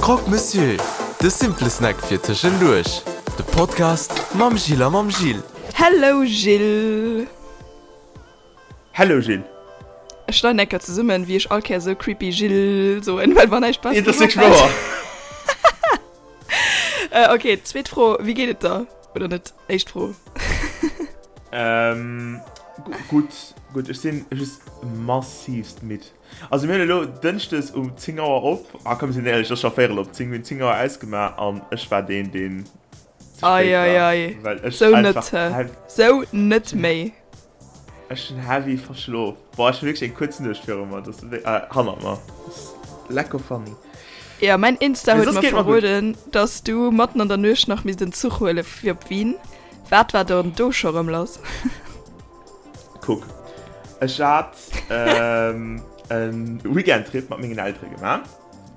Croque Monsieur, de simple Snack fir tëschenduerch. De Podcast mam Jill a mam Gilles. Hello Gilles! Hello Gilles! Ech schneiden eng Kéier zesummen, wéi ech all Kéier esou creepy Gilles soen, well mer näischt Besseres Et ass wierklech wouer! Ok, zweet Fro, Wéi geet et der? Oder net? Éischt Fro. Gutt, gutt. Ech sinn just massivst midd. Also mir hunn elo Dënschdes um 10 Auer op, ah komm mir sinn éierlech, et ass scho véierel op 10, mir hunn 10 Auer ausgemaach an ech war deen, deen ze spéit war, well ech einfach. Sou net méi. Ech hunn heavy verschlof. Boah, ech hunn wierklech eng kuerz Nuecht viru mer, dat ass äh, hannert mer. Dat ass lecko funny. Jo, mäin Insta huet mer verroden, dass du matten an der Nuecht nach misst en Zuch huele fir op Wien. Wat war dann do scho rëm lass? Kuck, ech hat ähm, en Weekendtrip mat mengen Eltere gemaach.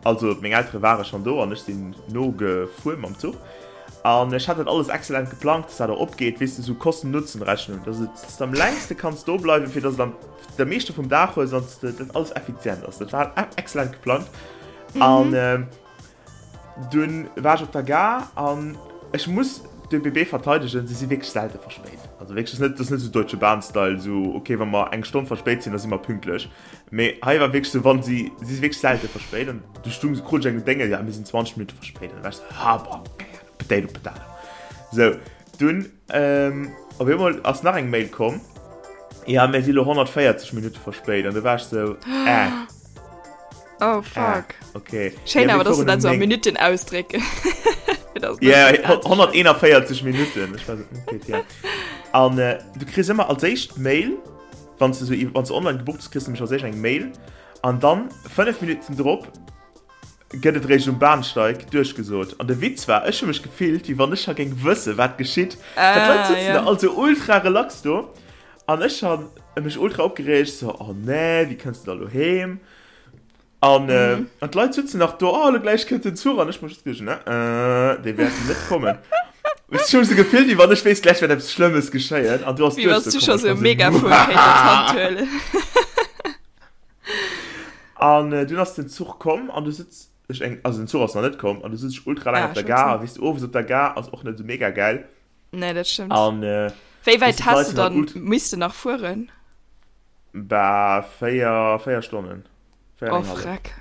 Also meng Eltere ware schonn do an ech sinn nogefuer mam Zuch. An ech hat dat alles exzellent geplangt, dass dat och opgeet, weess de, sou Kosten-Nutzen-Rechnung, dass et, dass de am längste kanns do bleiwen, fir dass et am de meeschte vum Dag hues an dass dat alles effizient ass. Dat war exzellent geplangt. An dunn war ech op der Gare an ech muss d'ÖBB verteidegen, se si wierklech selte verspéit. Also wierklech, dat ass net, dat ass net sou Deutsche Bahn-Style, sou okay, wa mer eng Stonn verspéit sinn, da si mer pünktlech. Mee hei war wierklech sou, wann si, si si wierklech selte verspéit an du stung, krut ech eng Dénge, ja mir sinn 20 Minutte verspéit an da war ech sou, ha boah, keng Ahnung, potato potato. Sou, dunn op eemol ass nach eng Mail komm, ja mir si lo 140 Minutte verspéit an du war ech sou, äh. Oh fuck. Äh, okay. Schéin awer, dass du dat sou a Minutten ausdrécken. Ja, 141 Minutten, ech war sou, okay, ja. An du kriss ëmmer als éischt d'Mail, Wann s de sou, wann s de online gebucht hues, kriss de nämlech als éischt eng Mail an dann 5 Minutten drop gëtt et réischt um Bahnsteig duerchgesot. An de Witz war, ech hu mech gefillt, wéi wann ech scho géing wësse wat geschitt. Well d'Leit sëtzen da all sou ultra relax do an ech han mech ultra opgereegt, sou, oh nee, wéi kënns de da lo heem? An, äh, mhm. an d'Leit sitzen nach do, oh, lo gläich kënnt den Zuch an ech muss just geduecht, ne, äh, dee wäert net kommen. Ech hu sou gefillt, wéi wann ech wéisst, gläich wäert eppes Schlëmmes geschéien an du ass Wéi wann s du scho sou e Megafon kéint an d'Hand huelen. An äh, dunn ass den Zuch komm an du sitz ech eng, also den Zuch ass nach net komm an du sitz ech ultra laang ah, op der Gare a weess du, owes op der Gare ass och net sou mega gäil. Nee, dat stëmmt. An äh, Wéi wäit has du dann misste nach fueren? Bah, 4, 4 Stonnen. 4 oh, Freck.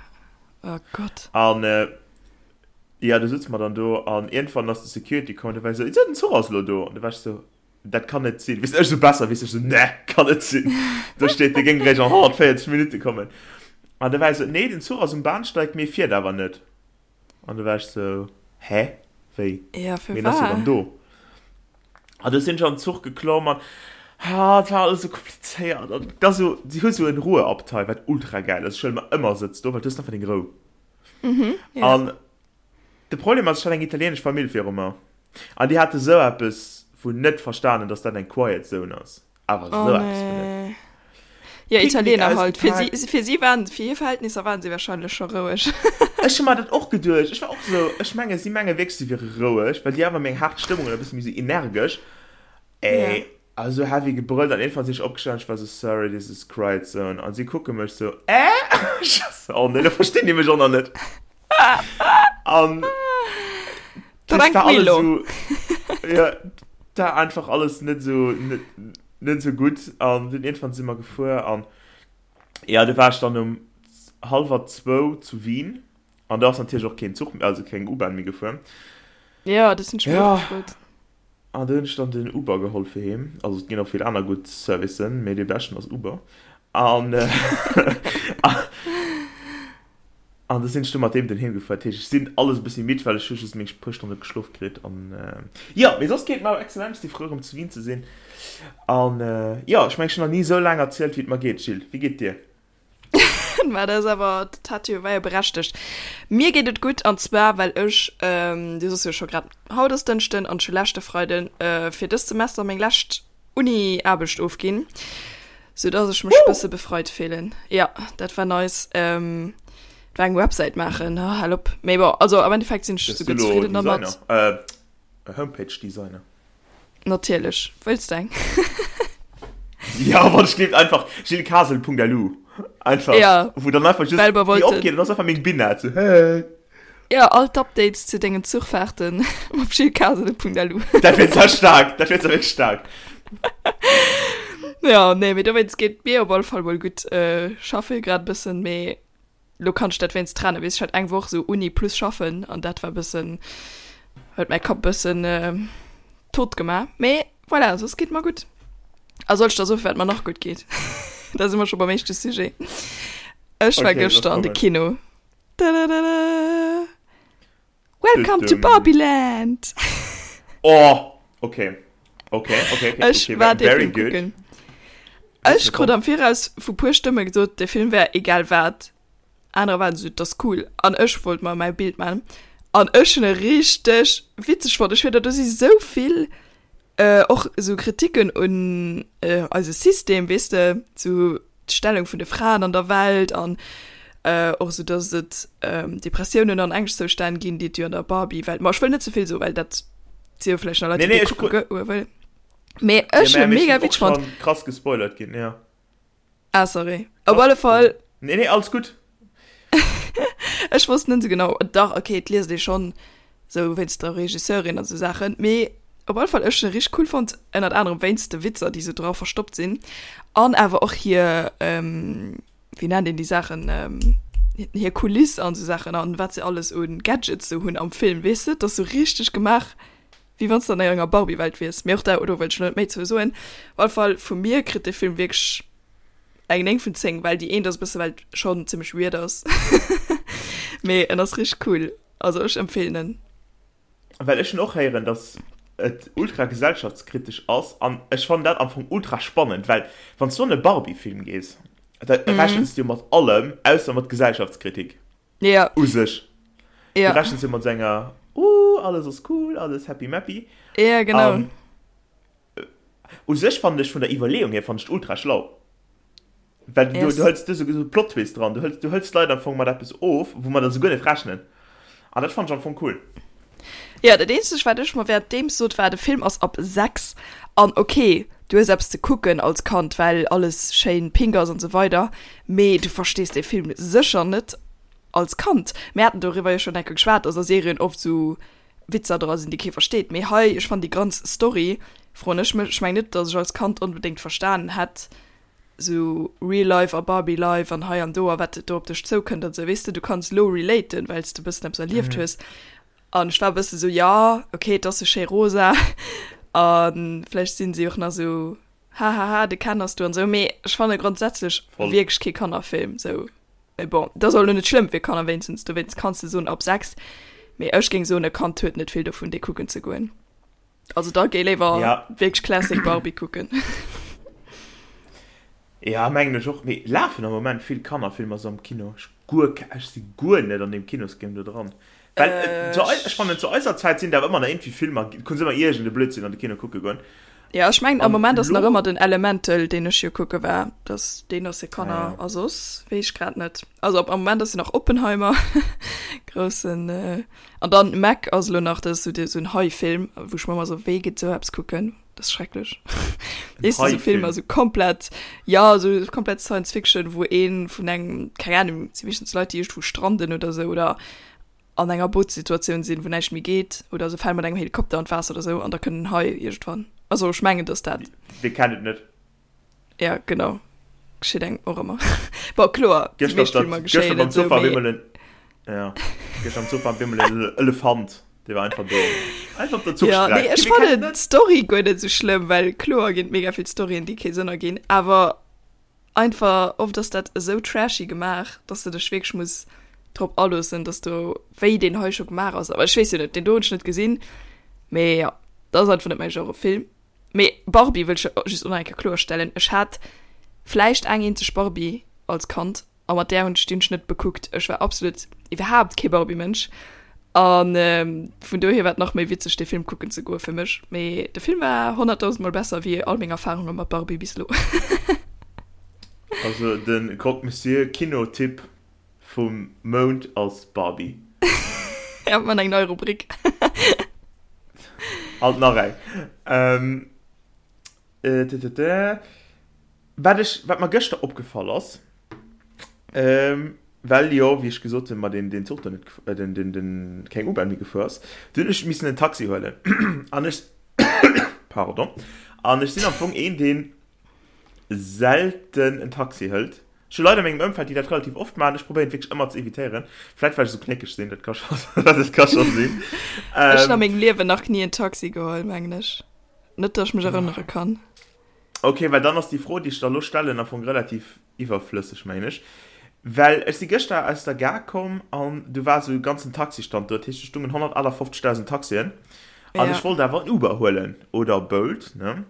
Oh Gott. An äh, ja, du sitzt mer dann do an irgendwann ass de Security komm, der war so, den Zuch ass lo do. An du warst so, dat kann net sinn. Weess ech so besser, weess ech so, ne, kann net sinn. Do steet, de géing réischt an 140 Minutte kommen. An da war so, nee, den Zuch ass um Bahnsteig, mee fiert awer net. An du war ech sou, hä? Wéi? Ja, fir Ween ass jo dann do? An du sinn ech an den Zuch geklomm an ha, et war alles sou komplizéiert. An da sou, si hu sou en Ruheabteil, wat ultra gäil ass. Ech huele mer ëmmer Sëtz do, well du hues einfach deng Rou. Mhm, ja. An de Problem ass, ech hat eng italienesch Famill viru mer. An déi hate sou eppes vun net verstanen, dass dat eng Quiet Zone ass. Awer oh, sou eppes vun net. Nee. Ja, Picknick Italiener halt. Fir ausgepaakt. si, fir si waren, fir hir Verhältnisser waren si wahrscheinlech scho roueg. Ech hu mer dat och geduecht. Ech war och sou, ech menge si menge wierklech, si wiere roueg, well déi awer méi eng haart Stëmmung an e bësse méi sou energesch. Ja. Ey, also heavy gebrëllt an iergendwann sinn ech opgestanen, ech war sou, sorry, this is quiet zone. An si kucke mech sou, äh? Ech war sou, oh nee, lo verstinn déi mech och nach net. An das war alles Tranquillo. sou, ja, da einfach alles net sou, net, net sou gutt. An dunn iergendwann si mer gefuer an ja, du war ech dann um hallwer zwou zu Wien an do ass natierlech och keen Zuch, also keng U-Bahn méi gefuer. Ja, dat hunn ech mir och Ja, gefrot. an du hunn ech dann den Uber geholl fir heem. Also et ginn och vill aner gutt Servicen, mee dee beschten ass Uber. An An da sinn ech du mat deem den heem gefuer. Dat heescht, ech sinn alles e bëssi midd, well ech hu just meng puer Stonne geschlof kritt. An jo, mee soss geet et mer excellent. Ech si frou erëm zu Wien ze sinn. An jo, ech mengen, ech hunn nach ni esou laang erzielt, wéi et mer geet. Jill, wéi geet et dir? Mä dat ass awer, dat hat jo, war jo berechtegt. Mir geet et gutt, an zwar well ech, du soss jo scho grad, haut ass Dënschden an ech hu leschte Freiden fir dëst Semester meng lescht Uni-Aarbecht ofginn, sou dass ech mech bësse befreit fillen. Ja, dat war nice. Ähm, war eng Websäit maachen, oh, hal op. Mee bon, also am Endeffekt sinn ech Bist du souguer lo zefridden dermat. Designer? Äh, Homepage-Designer. Natierlech. Wëlls de eng? Ja, wann ech gleeft einfach gillescasel.lu. Einfach, Ja, wou dann einfach just well mer déi wollten. opgeet an ass einfach meng Bina, so hey. Ja, all d'Updates zu dengen Zuchfahrten op gillescasele.lu. Dat wier zwar staark, dat wier zwar wierklech staark. Ja, nee, mee dowéinst geet et mir op alle Fall mol gutt. Schaffe grad e bëssen, mee lo kann ech dat wéinst trennen. Weess, ech hat eng Woch sou Uni plus schaffen an dat war bëssen, huet mäi Kapp bëssen tot gemaach. Mee voilà, soss geet mer gutt. A soll ech der soen, firwat mer nach gutt geet? Da si mer scho beim éischte Sujet. Ech war Okay, lass gëschter an de kommen. Kino. Tadadada. Welcome to Barbieland! Oh, okay. Okay, okay, okay. Ech okay, war dee very Film good. kucken. Ech krut am Viraus vu puer Stëmme gesot, de Film wär egal wat. Anerer waren esou, dat ass cool. An ech wollt mer mäi Bild man. An ech hunn e richteg witzeg fonnt. Ech fier, do si sou vill och esou Kritiken un eise System, weess de, sou d'Stellung vun de Fraen an der Welt an och esou, dass et Depressiounen an Ängschtzoustänn ginn, déi et jo an der Barbie-Welt, ma ech wëll net ze vill soen, well dat si jo vläicht nach Leit, Nee, déi nee, dee ech kucke goe wëllen. Mee ech Ja, hunn mä mega ech sinn witzeg och fonnt. schonn krass gespoilert ginn, ja. Ah, sorry. Op alle Fall. Nee, nee, alles gutt. Ech wosst net esou genau. Dach, okay, et liest ee schonn esou wéinst der Regisseurin an esou Saachen. Mee op alle Fall, ech hunn e richteg cool fonnt, ënnert anerem wéinst de Witzer, déi esou dra verstoppt sinn. An awer och hir, wéi nennt een déi Saachen, hir Kuliss an esou Saachen an wat se alles u Gadgets esou hunn am Film, weess de? Et ass esou richteg gemaach, wéi wann s de an enger Barbie-Welt wiers. Mee och da, do wëll ech lo net méi zou soen. Op alle Fall, vu mir kritt de Film wierklech eng 9 vun 10, well déi eent ass e bësse well et schonn zimmlech weird ass. Mee en ass richteg cool, also ech empfeelen en. Well ech hunn och héieren, dass et ultra gesellschaftskritesch ass an ech fannen dat am Fong ultra spannend, well wann s du an e Barbie-Film gees, da rechens du jo mat allem ausser mat Gesellschaftskritik. Ja. U sech. Ja. Du rechens jo mat sou enger, uh, alles ass cool, alles happy mappy. Ja, genau. An u sech fannen ech vun der Iwwerleeung hier fannen ech ultra schlau. Well du, Yes. du hëls du sou Plot Twist dran, du hëls, du hëls d'Leit am Fong mat eppes of, wou mer da sou guer net rechnen. An dat fannen ech am Fong cool. Ja, dat eenzegt wat ech mer währenddeems sot war, de Film ass ab 6 an ok, du hues eppes ze kucken als Kand, well alles schéin pink ass an sou weider, mee du verstees dee Film sécher net als Kand. Mir haten doriwwer jo schonn eng Kéier geschwat, dass a Serien oft sou Witzer dra sinn, déi kee versteet, mee hei, ech fannen déi ganz Story, froen ech mech, ech mengen net, dass ech als Kand onbedéngt verstanen hätt, sou Real Life a Barbie Life an hei an do a wat do op dech zoukënnt an sou, weess de, du kanns lo relaten, well s de bëssen eppes erlieft hues. An ech war e bësse sou, jo, ok, et ass sou schéi rosa a vläicht sinn si och nach sou, hahaha, de Ken ass do an sou, mee ech fanne grondsätzlech wierklech kee Kannerfilm sou. Mee bon, dat ass och lo net schlëmm fir Kanner, wéinstens dowéinst kanns de soen ab 6, mee ech géing soen, e Kand huet net vill dovun, dee kucken ze goen. Also da géi léiwer Ja. wierklech Classic Barbie kucken. Ja, mengen ech och. Mee lafen am Moment vill Kannerfilmer sou am Kino? Ech guer ke, ech si guer net an deem Kinosgame do dran. Well äh, zu ei, ech fannen zu eiser Zäit sinn der awer ëmmer nach iergendwéi Filmer, konns ëmmer iergend e Blödsinn an de Kino kucke goen. Ja, ech mengen am An Moment ass nach lo, ëmmer den Elemental, deen ech jo kucke war. Das, deen ass fir ah Kanner ja. a soss weess ech grad net. Also am Moment ass jo nach Oppenheimer, groussen äh, An dann Meg ass elo nach, dat ass sou en Hai-Film, wou ech mer ëmmer sou, wéi geet sou eppes kucken? Dat ass schrecklech. Weess de, sou Filmer, sou komplett, ja, sou komplett Science Fiction, wou ee vun engem, keng Ahnung, et si meeschtens Leit, déi iergendwou stranden oder sou oder an enger Bootssituatioun sinn, wou näischt méi geet oder se fale mat engem Helikopter an d'Waasser oder sou an da kënnt en Hai iergendwann. Also ech mengen, dass dat. Wie kennt et net? Ja, genau. Geschitt engem och ëmmer. Bon, kloer, déi Gëschter op meescht der, Filmer gëschter geschéien beim net sou, Zuch war mee. op eemol en, ja, gëschter am Zuch war op eemol en Elefant, dee war einfach do. Einfach op der Ja, Zuchstreck. nee, ech Wie kennt fannen et net? d'Story guer net sou schlëmm, well kloer ginn et mega vill Storyen, déi kee Sënn erginn, awer einfach oft ass dat esou trashy gemaach, dass de dech wierklech muss drop aloossen, dass do, wéi deen hei scho gemaach ass. Awer ech weess jo net, deen do hunn ech net gesinn, mee ja, dat ass einfach net mäi Genre Film. Mee Barbie wëll ech just och nach eng Kéier kloerstellen, ech hat vläicht eng eenzeg Barbie als Kand a mat där hunn ech déi hunn ech net bekuckt. Ech war absolut iwwerhaapt kee Barbie-Mënsch a vun dohier war et nach méi witzeg dee Film kucken ze goe fir mech. Mee de Film war honnertdausendmol besser wéi all meng Erfarunge mat Barbie bis elo. Also de Croque Monsieur Kinotipp vum Mount ass Barbie. Ja, man eng nei Rubrik. Alt nach eng. Ähm, äh, t -t -t. Wat ech, wat mer gëschter opgefall ass, ähm, Well jo, wéi ech gesot hunn, mer deen, deen Zuch do net, den, den, den, keng U-Bahn méi gefuer ass. Du hunn ech missen en Taxi huelen. An ech, pardon, an ech sinn am Fong een, deen selten en Taxi hëlt. Ech hu Leit a mengem Ëmfeld, déi dat relativ oft maachen. Ech probéieren et wierklech ëmmer ze evitéieren. Vläit well ech esou knéckeg sinn, dat ka scho, dat ka scho sinn. Ech hunn a mengem Liewen nach ni en Taxi geholl, mengen ech. Net, datt ech mech erënnere kann. Ok, well dann ass déi Fro, déi ech der elo stellen, am Fong relativ iwwerflësseg, mengen ech. Well ech si gëschter aus der Gare komm an du war esou e ganzen Taxistand do, dat heescht, do stungen 158.000 Taxien an ech wollt awer en Uber huelen oder Bolt, ne?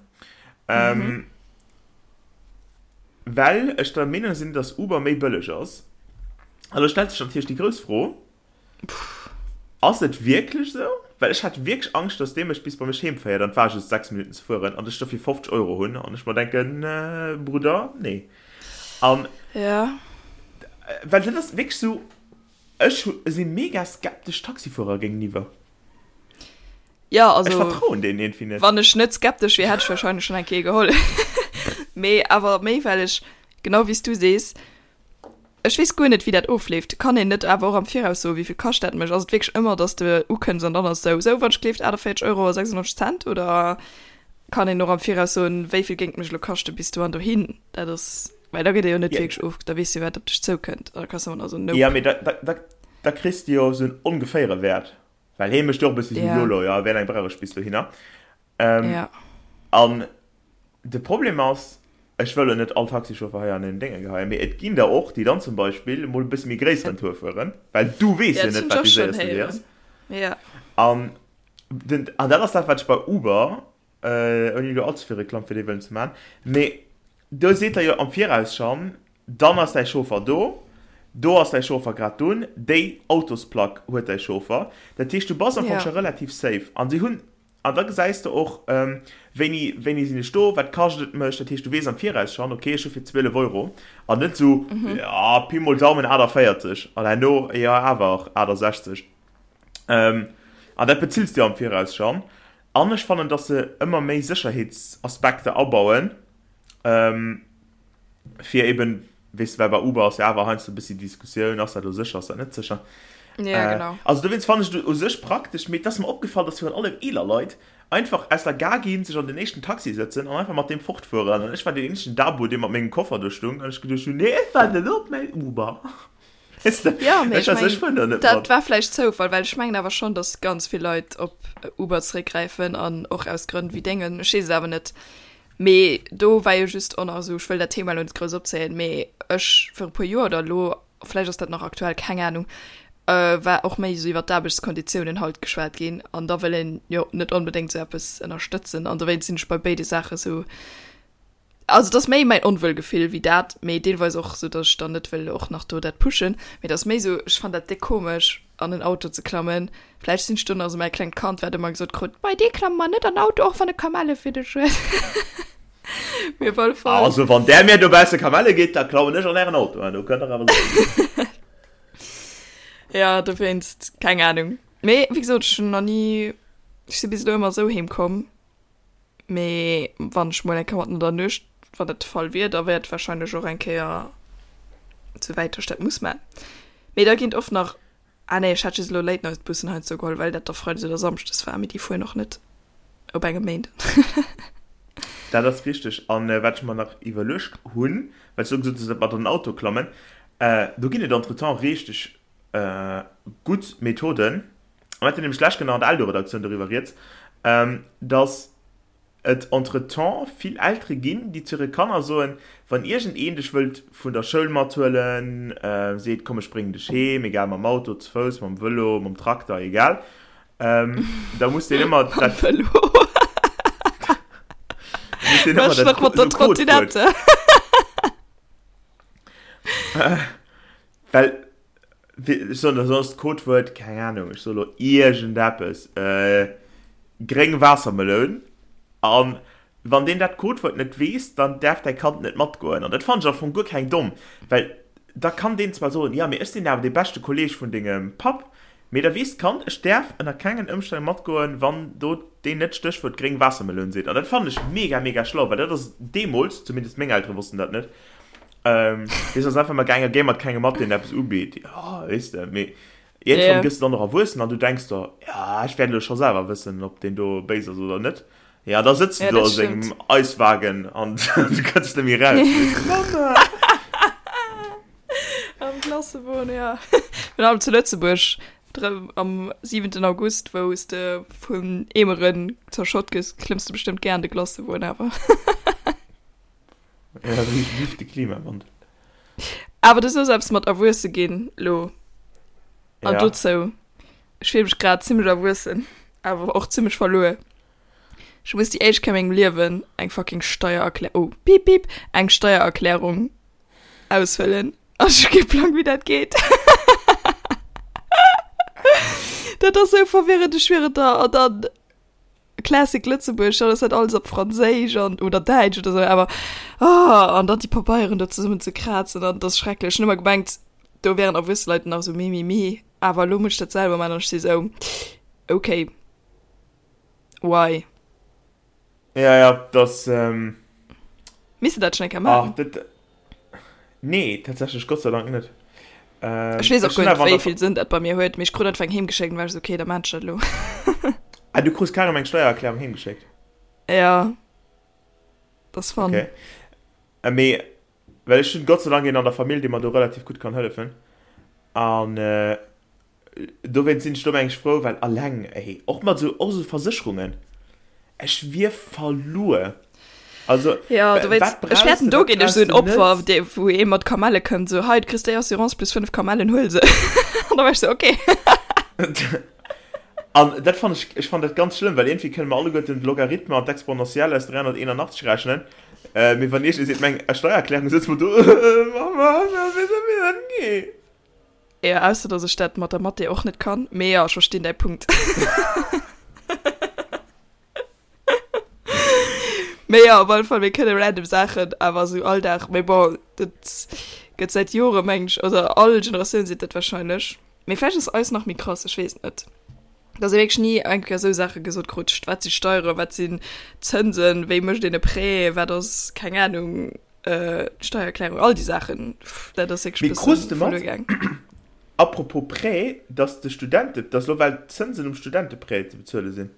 Well ech der Meenung sinn, dass Uber méi bëlleg ass. An elo stellt sech natierlech déi grouss Fro, Ass et wierklech esou? Well ech hat wierklech Angscht, dass dee mech bis bei mech heem féiert, an et war just 6 Minutten ze fueren, an ech dofir 50 Euro hunn, an ech mer denken, Brudder, nee. An Ja. well dat ass wierklech esou, ech si mega skeptesch Taxifuerer géingeniwwer. Ja, also. Ech vertrauen deenen iergendwéi net. Wann ech net skeptesch wier, hätt ech warscheinlech schonn eng Kéier geholl. Mee awer méi, well ech, genau wéi s du sees, Ech weess guer net wéi dat ofleeft. Kann een net awer och am Viraus soen wéivill kascht dat mech? Ass et wierklech ëmmer dass de ukënns an dann ass sou sou wann ech gleeft 48 Euro a 96 Cent oder kann een och am Viraus soen wéivill géing et mech elo kaschte bis do an dohin? Dat ass well da gëtt ee jo net wierklech of da weess de wat op dech zoukënnt an da kanns de ëmmer nach soen nope. Jo mee da da da kriss de jo sou en ongeféiere Wäert well hee mécht jo och e bëssi sou yolo, jo wéi laang brauch ech bis dohinner? An De Problem ass, ech wëll elo net all Taxichauffer hei an en Dénge geheien, mee et ginn der och, déi dann zum Beispill emol e bësse méi gréisseren Tour fueren, well du weess jo net, wat dee séierste Wee ass. An den, an dat ass dat, wat ech bei Uber, ouni elo allze vill Reklamm fir déi wëllen ze maachen, mee do seet der jo am Viraus schonn, dann ass däi Chauffer do, do ass däi Chauffer grad dunn, déi Autosplack huet däi Chauffer. Dat heescht, du bass am Fong scho relativ safe. An si hunn An da gesäis de och, wéini, wéini sinn ech do, wat kascht et mech. Dat heescht, du weess am Viraus schonn, okay, ech hu fir 12 Euro an net esou, jo, Pi mol Daumen 48 an herno, jo, awer 68. An dat bezills de jo am Viraus schonn. An ech fannen, dass se ëmmer méi Sécherheetsaspekter abauen, fir eben, weess de, well bei Uber ass jo awer heiansdo e bëssi Diskussioun, ass dat elo sécher, ass dat net sécher? Ja, genau. Also dowéinst fannen ech et u sech praktesch, mee et ass mer opgefall, dass virun allem eeler Leit einfach aus der Gare ginn, sech an den éischten Taxi sëtzen an einfach mat deem fortfueren. An ech war deen eenzegen Dabo, dee mat mengem Koffer do stung an ech geduecht hunn, nee, ech waarden elo op mäin Uber. Weess de, Ja, mee ech ech fueren do net mat. Dat war vläicht Zoufall, well ech mengen awer schonn, dass ganz vill Leit op Uber zeréckgräifen an och aus Grënn wéi dengen. Ech weess et awer net. Mee do war jo just och nach esou, ech wëll dat Thema elo net grouss opzéien, mee ech viru puer Joer oder elo, vläicht ass dat nach aktuell, keng Anung, war och méi esou iwwer d'Aarbechtskonditiounen halt geschwat ginn an da wëll een jo net onbedéngt esou eppes ënnerstëtzen an dowéinst sinn ech bei béide Saache esou, also et ass méi mäin Onwuelgefill wéi dat, mee deelweis och esou, datt ech dann net wëll och nach do dat pushen, mee et ass méi esou, ech fannen dat déck komesch an en Auto ze klammen. Vläicht sinn ech do nach esou mäi klengt Kand, wat ëmmer gesot krut, Bei dir klamme mer net an Auto, och wann e Kamelle fir dech huet. Mee op alle Fall. Also wann där mir dobausse Kamelle gitt, da klammen ech an ären Auto an, do kënnt der awer sécher sinn. Ja, dowéinst, keng Anung. Mee wéi gesot, ech hunn nach ni, ech si bis elo ëmmer esou heem komm. Mee wann ech mol eng Kéier matten an der Nuecht, wann dat de Fall wier, da wär et warscheinlech och eng Kéier sou wäit, datt ech dat muss man. Mee da ginn et oft nach, ah nee, ech hat just elo Late-Night-Bussen heiansdo geholl, well dat da freides oder samschdes war, mee déi fueren och net op engem Méinden. Dat ass richteg. An wat ech mer nach iwwerluecht hunn, well s du gesot hues, dat mat an den Auto klammen, do ginn et entretemps richteg gutt Methoden, Mir haten nämlech d'lescht Kéier nach an der Eldo-Redaktioun doriwwer rieds, dass et entretemps vill Eltere ginn, déi zu hire Kanner soen, wann iergendeen dech wëllt vun der Schoul mathuelen, seet, komm ech bréngen dech heem, egal mam Auto, ze Fouss, mam Vëlo, mam Trakter, egal, da muss deen ëmmer dat. Mam Vëlo. Muss deen ëmmer dat mat der Trottinette. Well Ech soen der soss d'Codewuert, keng Ahnung, ech soe lo iergendeppes, gréng Waassermeloun. An wann deen dat Codewuert net weess, dann däerf däi Kand net matgoen. An dat fannen ech am Fong guer keng domm, well da kann deen zwar soen, jo, mee ech sinn awer dee beschte Kolleeg vun dengem Papp, mee da weess d'Kand, ech däerf ënner kengen Ëmstänn matgoen, wann do deen net d'Stéchwuert gréng Waassermeloun seet. An dat fannen ech mega, mega schlau, well dat ass deemools, zumindest meng Eltere wossten dat net. Ähm, weess ass einfach mal gaangen, géi mat kengem mat, deen eppes ubitt. Ja, weess de, mee iergendwann yeah. gëss du dann och erwuessen an du denks der, ja, ech wäert elo scho selwer wëssen, ob deen do béis ass oder net. Ja, da sëtzt du ja, do a sengem Eiswagen an du kënns net méi raus. Mama! Am Klassewon, ja. Virun allem zu Lëtzebuerg, am 7. August, wou s de vun Eemeren zerschott gëss, klëmms de bestëmmt gär an de Glacewon awer. Ja, vive de Klimawandel. Awer du soos eppes mat erwuesse ginn lo. An ja. dozou, ech fill mech grad zimmlech erwuessen, awer och zimmlech verluer. Ech muss déi éischt Kéier a mengem Liewen eng fucking Steiererklär-, oh, piip piip, eng Steiererklärung ausfëllen. An ech hu kee Plang, wéi dat geet. Dat ass sou verwirrend, ech schwieren et der. An dann Classic Lëtzebuerg, dann ass dat alles op Franséisch an, oder Däitsch oder sou, awer oh, an dann déi Pabeieren do zesummen ze krazen an, dat ass schrecklech. Ech hunn ëmmer gemengt, do wären erwuesse Leit nach sou mi mi mi, awer elo muss ech dat selwer maachen an ech si sou, okay. Why? Ja, ja, das. Ähm... Misst du dat schon eng Kéier maachen? Ach, dat. Nee, tatsächlich Gott sei Dank net. Ähm, ech weess och guer net, wéi vill Sënn dat bei mir huet, mee ech krut einfach eng heemgeschéckt an war ech sou, okay, da maan ech dat elo. Ah, du krus carrément eng Steiererklärung heemgeschéckt? Ja. Dat ass fun. Okay. Äh, mee, well ech hunn Gott sei Dank een an der Famill, dee mer do relativ gutt kann hëllefen. An äh, Dowéinst sinn ech do meng ech frou, well alleng, ey, och mat esou, och esou Versécherungen, ech wier verluer. Also, Ja, du wéinst, wat ech brauchs fäerten, de, do wat ginn ech brauchs esou en de Opfer, net? dee, wou ee mat Kamelle kënnt, esou, hei, du kriss déi Assurance plus 5 Kamellen, huel se. An da war ech esou, okay. An dat fann ech, ech fann dat ganz schlëmm, well iergendwéi kënne mer alleguerten d'Logarithme an d'Exponentielle aus 381 rechnen, mee wann iergendee seet, meng Steiererklärung, sëtze mer do, Mama, wéi soll mir dat ginn? Jo, ausser dass ech dat mat der Mathé och net kann. Mee jo, ech verstinn däi Punkt. Mee jo, op alle Fall, mir kënne random Saachen awer esou Alldag. Mee bon, dat gëtt säit Jore mengen ech, oder all Generatioun seet dat wahrscheinlech. Mee vläicht ass eis nach méi krass, ech weess et net. Dass ee wierklech ni eng Kéier esou Saache gesot krut, wat si Steieren, wat sinn Zënsen, wéi mécht een e Prêt, wat ass, keng Anung. Steiererklärung, all déi Saachen, dat ass wierklech Mee krus bëssen de mat, verluer gaang. apropos Prêt, dass de Studente, dass elo well d'Zënsen um Studenteprêt ze bezuele sinn?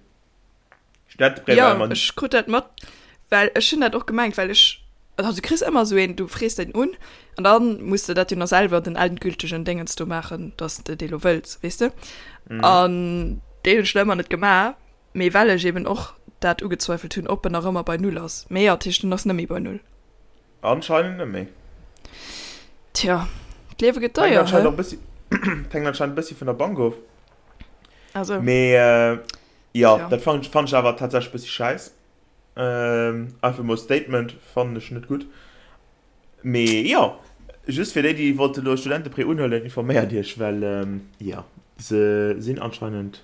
Studenteprêt Jo, war ëmmer. ech krut dat mat, well ech hunn dat och gemengt, well ech, also du kriss ëmmer esou een, du frees deen un an da muss de dat jo nach selwer den endgültegen Déngens do maachen, dass de dee lo wëlls, weess de? An deen hunn ech nach ëmmer net gemaach, mee well ech eben och dat ugezweifelt hunn, ob en nach ëmmer bei Null ass. Mee jo, dat heescht, en ass net méi bei Null. Anscheinend net méi. Tja, d'Liewe gëtt deier, Hänkt hä? anscheinend och bëssi, hänkt anscheinend bëssi vun der Bank of. Also. Mee jo, Tja. dat fannt ech awer tatsächlech bëssi schäiss. Einfach mol Statement, fannen ech net gutt. Mee jo, just fir déi, déi wollte lo Studenteprêt unhuelen, informéiert iech, well jo, se sinn anscheinend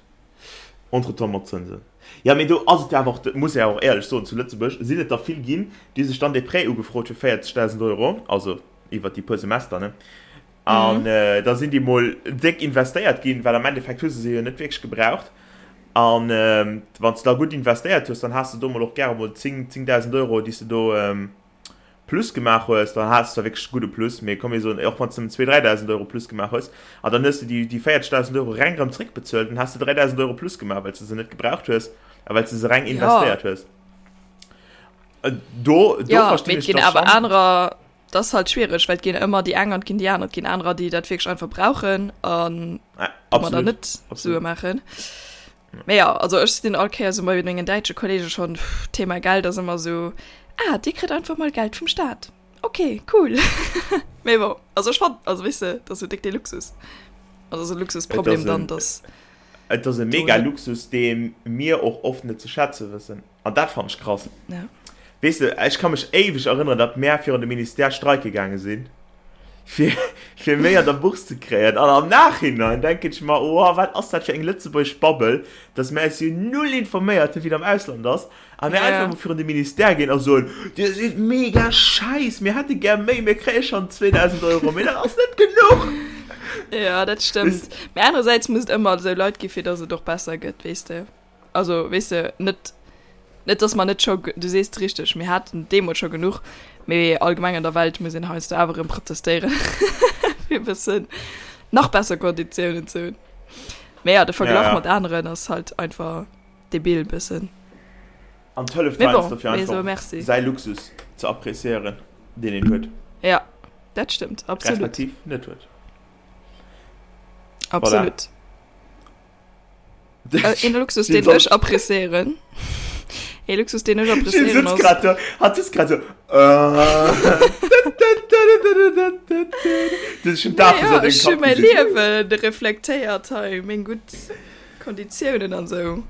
entretemps mat Zënsen. Jo, mee do ass et jo awer och, dat muss ee awer och éierlech soen, zu Lëtzebuerg sinn et der vill ginn, déi sech dann dee Prêt ugefrot hu fir 40.000 Euro, also iwwert déi puer Semester, ne? An da sinn déi mol déck investéiert ginn, well am Endeffekt hu se se jo net wierklech gebraucht. An wann s de da gutt investéiert hues, dann has de do mol och gäre mol 10, 10.000 Euro, déi s de do Plus gemaach hues, dann has de zwar wierklech e gudde Plus, mee komm mir soen, och wann s de nëmmen 2.000, 3.000 Euro Plus gemaach hues, an dann hues de déi, déi 40.000 Euro reng erëm zréckbezuelt, dann has de 3.000 Euro Plus gemaach, well s de se net gebraucht hues a well s de se reng Ja. investéiert hues. Do, do Ja, verstinn mee et ech ginn da awer schonn. anerer, dat ass halt schwiereg, well et ginn ëmmer déi eng an et ginn déi aner. Et ginn anerer, déi dat wierklech einfach brauchen an Ah, domadder absolut, net Sue absolut. maachen. Mee ja, also ech sinn all Kéier sou bei mengen däitsche Kollege schonn, pff, Thema Geld ass ëmmer sou, ah, dir kritt einfach mol Geld vum Staat. Ok, cool. Mee bon, also ech fann, also weess de, dat ass sou déck dee Luxus. Also ass e Luxusproblem dann, dass. Et ass e mega Luxus, dee mir och oft net ze schätze wëssen. An dat fannen ech krass. Ja. Weess de, ech ka mech éiweg erënneren, datt mär virun de Ministère streike gaange sinn, fir, fir méi an der Bourse ze kréien. An am Nachhinein denken ech mer, oh, wat ass dat fir eng lëtzebuergesch Babbel, datt mär eis jo null informéiert hunn, wéi et am Ausland ass, a mär Ja. einfach mol virun de Ministère ginn a soen, Dir sidd mega schäiss, mir hätte gär méi, mir kréie schonn 2.000 Euro, mee dat ass net genuch. Ja, dat stëmmt. Mee anerersäits muss et ëmmer esou Leit gi fir datt et och besser gëtt, weess de. Also, weess de, net, net dass mer net scho, du sees et richteg, mir haten deemools scho genuch. Mee allgemeng an der Welt muss een heiansdo awer erëm protestéieren, fir e bëssen nach besser Konditiounen ze hunn. Mee ja, de Verglach ja, ja. mat aneren ass halt einfach debil bëssen. An et hëlleft heiansdo fir einfach säi Luxus ze appréciéieren, deen een huet. Ja, dat stëmmt, absolut. Respektiv net huet. Absolut. Voilà. Äh, een Luxus, deen ech appréciéieren. Ee Luxus, deen ech appréciéieren ass. Grad so, hat sitzt grad so. Das ist schon dafür, ja, ech hu mäi Liewen reflektéiert hei, meng gutt Konditiounen an sou.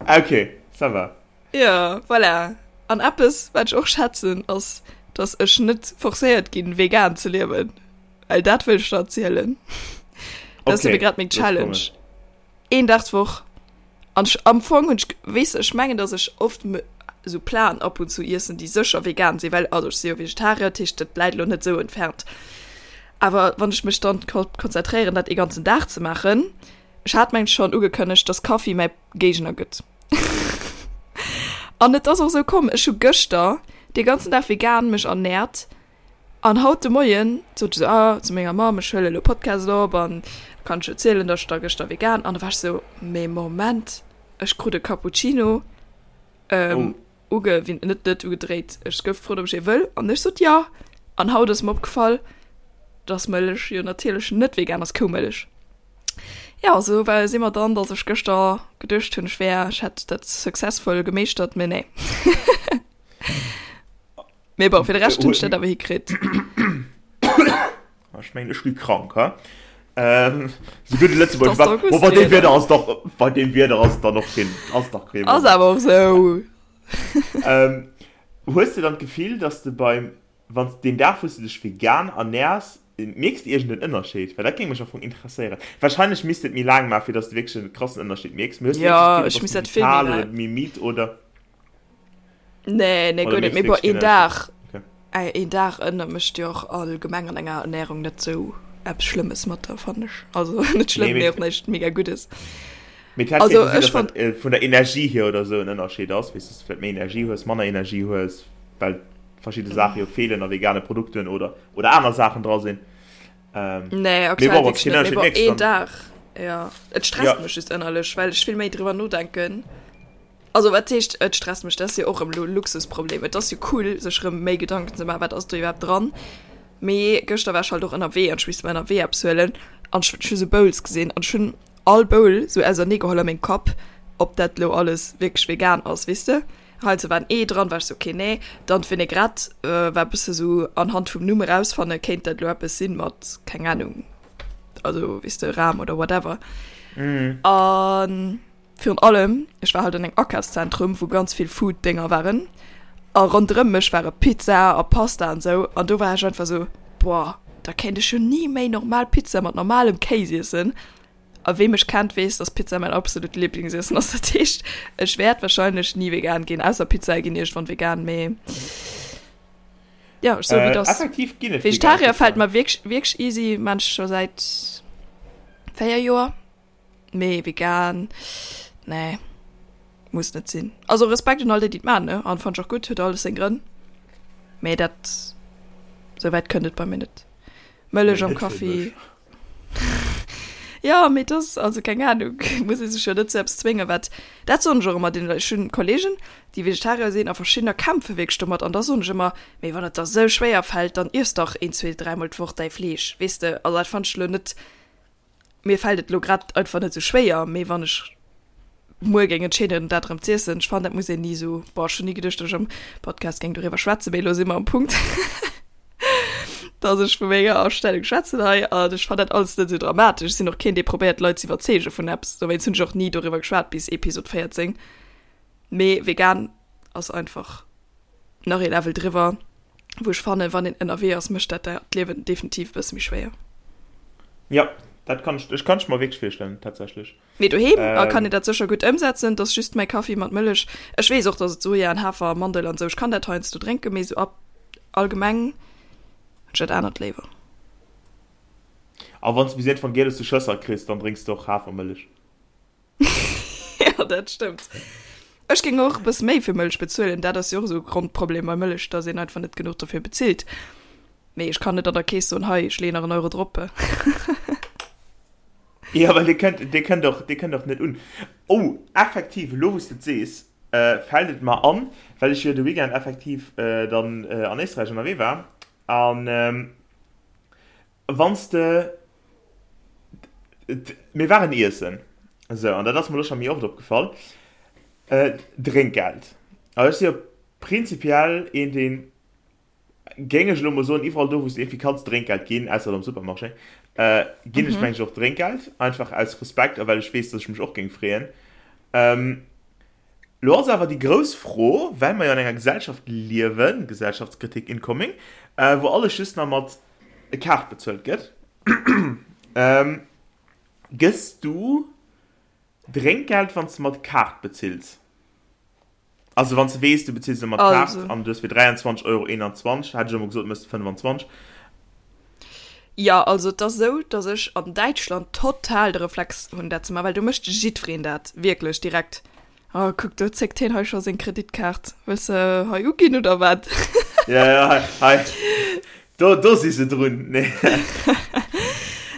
Okay, ça va. Ja, voilà. An eppes, wat ech och schätzen, ass, dass ech net forcéiert ginn, vegan ze liewen. Well dat wëll ech der erzielen. Dat ass okay, grad meng Challenge. Een Dag d'Woch. An ech, am Fong hunn ech, weess de, ech mengen, dass ech oft esou Platen ab und zu iessen, déi sécher vegan sinn, well, also ech si jo Vegetarier, dat heescht, dat läit elo net esou entfernt. Awer wann ech mech dann konzentréieren, dat ee ganzen Dag ze maachen, ech hat mengen schonn ugekënnegt, dass Kaffi mäi Géigner gëtt. An et ass och esou komm, ech hu gëschter dee ganzen Dag vegan mech ernährt An haut de Moien sot ech esou, ah, zu menger Mamm, ech huele elo Podcast op an da kann ech erzielen, datt ech da gëschter vegan. An da war ech esou, mee Moment, ech krut e Cappuccino uge, wéi, net, net ugedréit, ech gouf gefrot, ob ech ee wëll an ech sot jo. An haut ass mer opgefall, datt Mëllech jo natierlech net vegan ass, Koumëllech. Jo, esou war, si mer dann, datt ech gëschter geduecht hunn, ech wär, ech hätt dat successful gemeeschtert, mee nee. Mee bon, fir de Rescht hunn ech dat awer hikritt. Ech mengen, ech gi krank, ha? Ähm, so gutt Lëtzebuerg war. Bo, bei deem Wieder ass doch, bei deem Wieder ass et dann och keen, ass dach keen. Ass awer och sou. Ähm, hues de dann d'Gefill, dass de beim, wann s deen Dag, wou s de dech vegan ernährs, mierks de iergend en Ënnerscheed? Well dat géing mech am Fong interesséieren. Wahrscheinlech misst de et méi laang maachen, fir dass de wierklech e krassen Ënnerscheed mierks. Mee hues de wierklech d'Gefill, du bass méi vital oder méi midd oder? Nee, nee, guer net. Mee bon, een Dag, een Dag ënner mécht jo och allgemeng an enger Ernährung net sou eppes Schlëmmes mat der, fannen ech. Also net schlëmm, mee och näischt mega Guddes. Mee et hätt kéinte sinn, dass dat vun der Energie hier oder sou en Ënnerscheed ass, weess, dass du vläicht méi Energie hues, manner Energie hues, well verschidde Saache jo feelen a vegane Produkten oder, oder aner Saachen dra sinn. Nee, aktuell wierklech net. Mee bon, een Dag, jo. Et stresst mech just ënnerlech, well ech vill méi driwwer nodenken. Also wat heescht et stresst mech, dat ass jo och erëm elo e Luxusproblem. Et ass jo cool sech erëm méi Gedanken ze maachen, wat ass do iwwerhaapt dran. Mee gëschter war ech halt och ënnerwee an ech misst mer ënnerwee eppes huelen an ech hu sou Bowls gesinn an ech hunn all Bowl sou ausernee geholl a mengem Kapp, ob dat elo alles wierklech vegan ass, weess de. Heiansdo war en Ee dran, war ech sou okay nee. Dann d'Vinaigrette war e bësse sou anhand vum Numm erausfanne kéint dat elo eppes sinn mat keng Anung, also weess de Ram oder whatever. An Virun allem, ech war halt an engem Akafszentrum, wou ganz vill Food-Dénger waren a ronderëm mech ware Pizza a Pasta an esou an do war ech einfach esou, boah, da kéint ech jo ni méi normal Pizza mat normalem Kéis iessen. A wee mech kennt, weess, dass Pizza mäin absolut Liblingsiessen ass. Dat heescht, ech wäert wahrscheinlech ni vegan ginn, ausser Pizzae ginn iergendwann vegan, mee jo, ech soe wéi et ass. Effektiv ginn et vegan Vegetarier fält Pizzaen. mer wierklech, wierklech easy, maan ech scho säit 4 Joer. Mee vegan, nee, muss net sinn. Also Respekt un all déi, déi et maan, ne, an fannt ech och gutt, huet alles seng Grënn. Mee dat, sou wäit kënnt et bei mir net. Mëllech am Kaffi. Jo, mee et ass, also keng Ahnung, muss ee sech jo net zu eppes zwéngen, wat, dat soen ech och ëmmer deene Leit, ech hunn Kollegen, déi Vegetarier sinn a verschiddener kämpfe wierklech domat an da soen ech ëmmer, mee wann et der sou schwéier fält, dann iess dach een, zwee, dräimol d'Woch däi Fleesch, weess de, also dat fannt ech elo net Mir fällt et lo grad einfach net sou schwéier, mee wann ech muer géing entscheeden dat erëm z'iessen, ech fannen dat muss een ni sou, boah ech hunn ni geduecht dat ech am Podcast géing doriwwer schwätzen, mee elo si mer am Punkt dass ech vu menger Astellung schwätzen hei an ech fannen dat alles net sou dramatesch. Ech sinn och keen dee probéiert d'Leit z'iwwerzeege vun eppes, dowéinst hunn ech och ni doriwwer geschwat bis Episod 14, mee vegan ass einfach nach ee Level driwwer. wou ech fannen, wann een ënnerwee ass, mécht dat d'Liewen definitiv e bësse méi schwéier. Ja, dat kann ech, ech kann ech mer wierklech virstellen, tatsächlech. Mee doheem ähm, kann een dat sécher gutt ëmsetzen, dass just mäi Kaffi mat Mëllech, ech weess och, dass et Soja an Hafer a Mandel an esou, ech kann dat heiansdo drénken, mee esou ab allgemeng hunn ech dat anert léiwer. A wann s de bis iergendwann Giel aus de Schësser kriss, dann drénks de och Hafermëllech. Ja, dat stëmmt. Ech géing och e bësse méi fir Mëllech bezuelen. Dat ass jo och esou e Grondproblem bei Mëllech, dass een einfach net genuch dofir bezilt. Mee ech kann net an der Kees soen, hei, ech leeën nach en Euro drop. Jo, well dee kënnt, dee kënnt och, dee kënnt och net un. Oh, effektiv, elo wou s de et sees, fält et mer an, well ech jo de Weekend effektiv dann an Éisträich ënnerwee war an wann s de, mir waren iessen, esou, an dat ass mer elo scho méi oft opgefall, Drénkgeld. Also ech si jo prinzipiell een, deen Géing ech elo mol soen, iwwerall do wou s de iergendwéi kanns Drénkgeld ginn, ausser am Supermarché, ginn ech mengen ech och Drénkgeld, einfach aus Respekt a well ech weess, dass ech mech och géing freeën. Elo ass awer déi grouss Fro, well mer jo an enger Gesellschaft liewen, Gesellschaftskritik incoming, wou alles just nach mat Kaart bezuelt gëtt, gëss du Drénkgeld wann s de mat Kaart bezills? Also wann s de weess, du bezills elo mat Kaart an du hues fir 23,21 Euro, hätt ech elo mol gesot, méchs de 25. Jo, also et ass esou, datt ech an Däitschland total de Reflex hunn dat ze maachen, well do mécht jiddwereen dat wierklech direkt. Oh kuck, do zéckt hien hei scho seng Kreditkaart. Wëlls de hei uginn oder wat? Ja, ja, hei, hei. Do, do si se drun. Nee.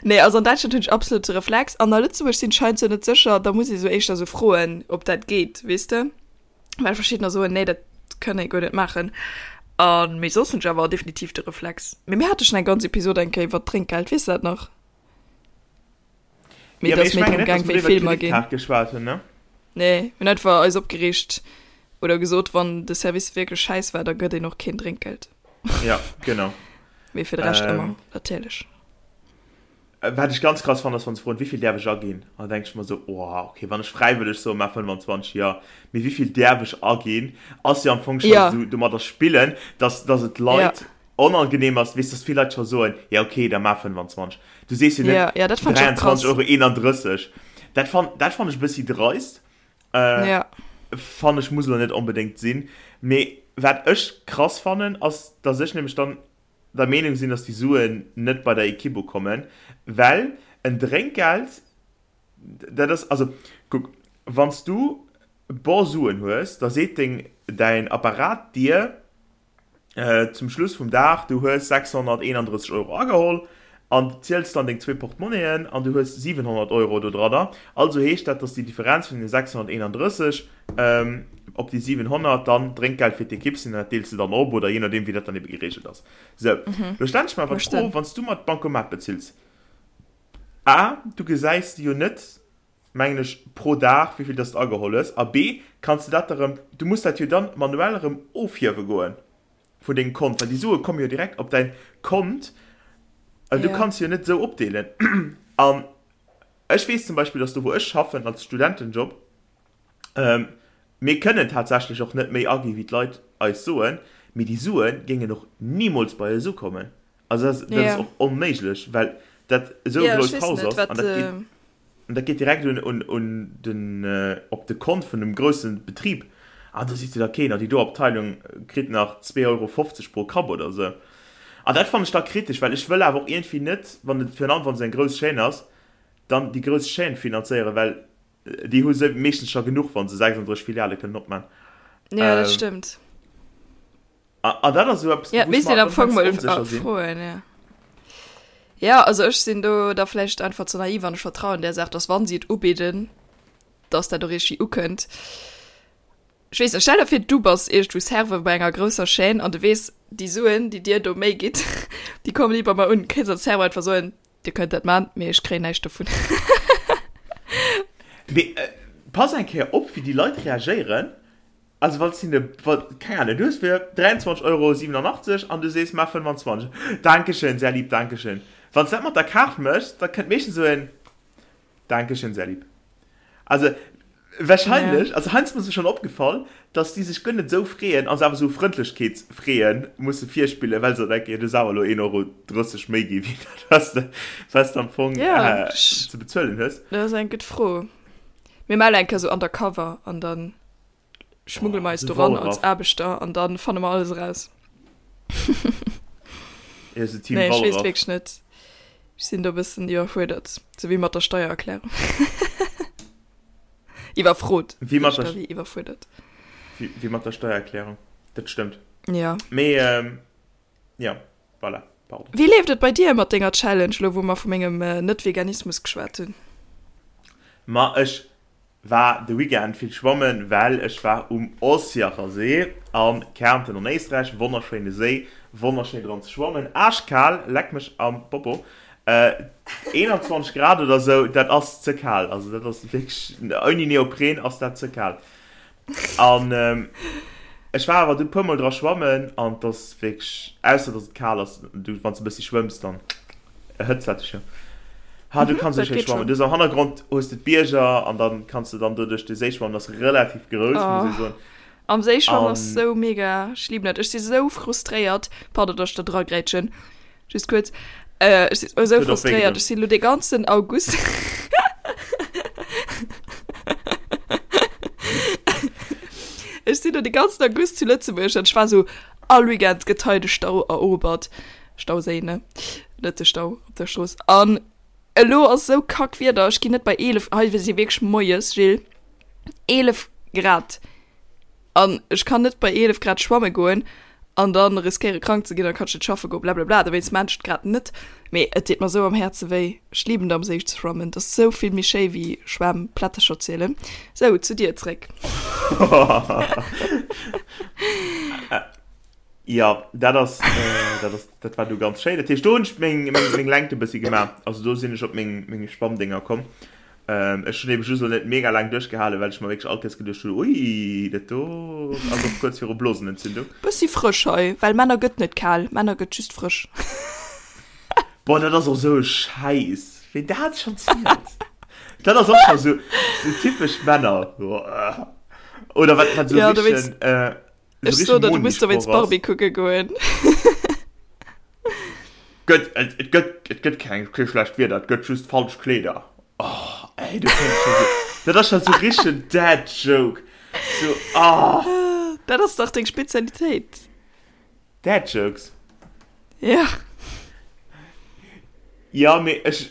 Nee, also an Däitschland hunn ech absolut de Reflex. An a Lëtzebuerg sinn ech heiansdo net sécher, da muss ee sou éischter sou froen, ob dat geet, weess de? Well verschiddener soen, nee, dat kann ee guer net maachen. An, mee soss hunn ech awer definitiv de Reflex. Mee mir hate schonn eng ganz Episod eng Kéier iwwer d'Drénkgeld, weess de dat nach? Mee ja, et ass méi drëm gaang, wéi vill mer ginn. Geschwat hunn, ne? Nee, mir hunn einfach eis opgereegt oder gesot, wann de Service wierklech schäiss war, da gëtt een och keen Drénkgeld. Ja, genau. Mee fir de Rescht ähm, ëmmer, natierlech. Äh, wat ech ganz krass fannen, ass, wann se froen, wéi vill däerf ech aginn? An da denk ech mer sou, oh, okay, wann ech fräiwëlleg soen, maach 25, jo. Mee wéi vill däerf ech aginn, ass jo am Fong scho ja. sou domadder spillen, dass, dass et Leit ja. onangenehm ass, weess, dass vill Leit scho soen, ja okay, da maach 25. Du sees jo net ja, ja, 23,31 Euro. Dat fan, dat fan ech e bëssi dreist. Äh, ja. Fan ech muss elo net onbedéngt sinn. Mee wat ech krass fannen, ass, dass ech nämlech dann der Meenung sinn, dass déi Suen net bei der Ekipp ukommen, well en Drénkgeld, dat ass, also kuck, wann s du bor Suen hues, da seet deng, däin Apparat dir, Zum Schluss vum Dag, du hues 631 Euro ageholl an ziels dann deng zwee Portmonnien an du hues 700 Euro do dranner. Also heescht dat, dass déi Differenz vun den 631 op déi 700 dann Drénkgeld fir d'Ekipp sinn an dat deels de dann op oder jee nodeem wéi dat dann ebe gereegelt ass. Sou, lo stellen ech mer awer d'Fro, wann s du mat Bancomat bezills, A, du gesäis jo net, mengen ech, pro Dag, wéi vill dass de ageholl hues, a B, kanns de dat da rëm, du muss dat jo dann manuell erëm ofhiewe goen vun dengem Kont, well déi Sue komme jo direkt op däin Kont, an du kanns se jo net esou opdeelen. An ech weess zum Beispill, dass do wou ech schaffen als Studentenjob, mir kënnen tatsächlech och net méi agi wéi d'Leit eis soen, mee déi Sue géingen och nimools bei eis ukommen. Also dat ass och onméiglech, well dat esou e grousst Haus ass an dat geet. An dat geet direkt un, un, un den, op de Kont vun dem grousse Betrib. An do seet jo da keen, oh déi do Abteilung kritt nach 2,50 Euro pro Kapp oder esou. An dat fannen ech da kritesch, well ech wëll awer och iergendwéi net, wann et virun allem wann et eng grouss Chaîne ass, dann déi grouss Chaîne finanzéieren, well déi hu se meeschtens scho genuch, wa se 36 Filiale kënnen opman. Jo, dat stëmmt. An dat ass esou eppes, ja, wou ech mer am Fong mol froen, ja. Ja, also ech sinn do da vläicht einfach ze naiv an ech vertrauen där Saach, dass wann si et ubidden, dass dat och iergendwéi ukënnt. Ech weess net, stell der vir du bass iergendwou Serveur bei enger grousser Chaîne an du weess, déi Suen, déi dir do méi gitt, déi kommen ni bei mer un. Kéints als Serveur einfach soen, Dir kënnt dat man, mee ech kréien näischt dovun. Mee pass eng Kéier op, wéi déi Leit reagéieren, Also wann s hinne, wa, keng Ahnung, du hues fir 23 Euro 87 an du sees, maach 25. Dankeschön, sehr lieb, dankeschön. Wann s dat mat der Kaart méchs, da kënnt meeschtens esou en Dankeschön, sehr lieb. Also wahrscheinlech, ja. also heiansdo ass mir schonn opgefall, dass déi sech guer net esou freeën a se awer esou Frëndlechkeetsfreeë musse virspillen, well se denken, jo, du hues awer elo 1,30 Euro méi gi wéi dat, wat s de, wat s de am Fong ja, ze bezuelen hues. Dat ass eng gutt Fro. Mir melle eng Kéier esou undercover an dann. Schmuggele mer eis doran als Aarbechter an dann fanne mer alles eraus. Ja, so Team Nee, ech weess Wallraff. wierklech net. Ech sinn do e bëssen iwwerfuerdert, sou wéi mat der Steiererklärung. Iwwerfrot. Wéi mat der, wéi iwwerfuerdert. Wéi, wéi mat der Steiererklärung. Dat stëmmt. Ja. Mee, ähm, ja, voilà, pardon. Wéi leeft et bei dir mat denger Challenge, lo wou mer vu mengem Net-Veganismus geschwat hunn? Ma ech war de Weekend vill schwammen, well ech war um Ossiacher See a Kärnten an Éisträich. Wonnerschéine Séi, wonnerschéin dran ze schwammen. Aaschkal, leck mech am Popo. 21 Grad oder sou, dat ass ze kal. Also dat ass wierklech, ouni Neopren ass dat ze kal. An ech war awer du puer mol dra schwammen an et ass wierklech, ausser dass et kal ass, du wann s de e bëssi schwëmms, dann erhëtzt dat dech jo. Ha du kanns esou schéi schwammen. Du hues am Hannergrond hues de d'Bierger an dann kanns de dann do duerch de Séi schwammen, ass relativ grouss, muss ee soen. Am Séi schwammen ass sou mega, ech liben dat. Ech si sou frustréiert, pardon, dass ech da dragrätschen. Just kuerz. Äh, ech sinn esou frustréiert. Ech sinn lo de ganzen August. Ech sinn lo de ganzen August zu Lëtzebuerg an ech war sou, all Weekend gëtt hei de Stau erobert. Stauséi, ne? Net de Stau op der Strooss. An elo ass sou kack Wieder, ech ginn net bei 11, hei si wierklech moies, Gilles, 11 Grad. An ech kann net bei 11 Grad schwamme goen an dann riskéiere krank ze ginn, dann kann ech net schaffe goen, blablabla. Dowéinst maan ech et grad net. Mee et deet mer sou am Häerze wéi. Ech liben et am Séi ze schwammen, et ass sou vill méi schéi wéi Schwämm, Plättercher zielen. Sou, zu dir zréck. Jo, dat ass, dat ass, dat war du ganz schéin. Dat heescht, do hunn ech meng, meng, meng Längt e bëssi gemaach. Also do sinn ech op meng, meng Schwammdénger komm. Ähm, ech hunn eben just lo net mega laang duerchgehalen, well ech mer wierklech all Kéiers geduecht hunn, ui, dat do ass och kuerz viru Blosenentzündung. Bëssi frësch hei, well Männer gëtt net kal, Männer gëtt just frësch. Boah, dat ass och esou e Schäiss, ween dat schonn zielt. Dat ass och scho sou, sou typesch Männer. Oder wat, wat sou Ja, du richtegen, wéinst, äh, sou ech so richtegen der, du muss dowéinst Moni-Sproch ass. Barbie kucke goen. Gëtt, et, et gëtt, et gëtt keng, kee schlecht Wieder, et gëtt just falsch Kleeder. Oh, ey, du kenns schon so, dat ass schon so richtegen Dad Joke. So, ah. Dat ass dach deng Spezialitéit. Dad Jokes? Ja. Ja, mee ech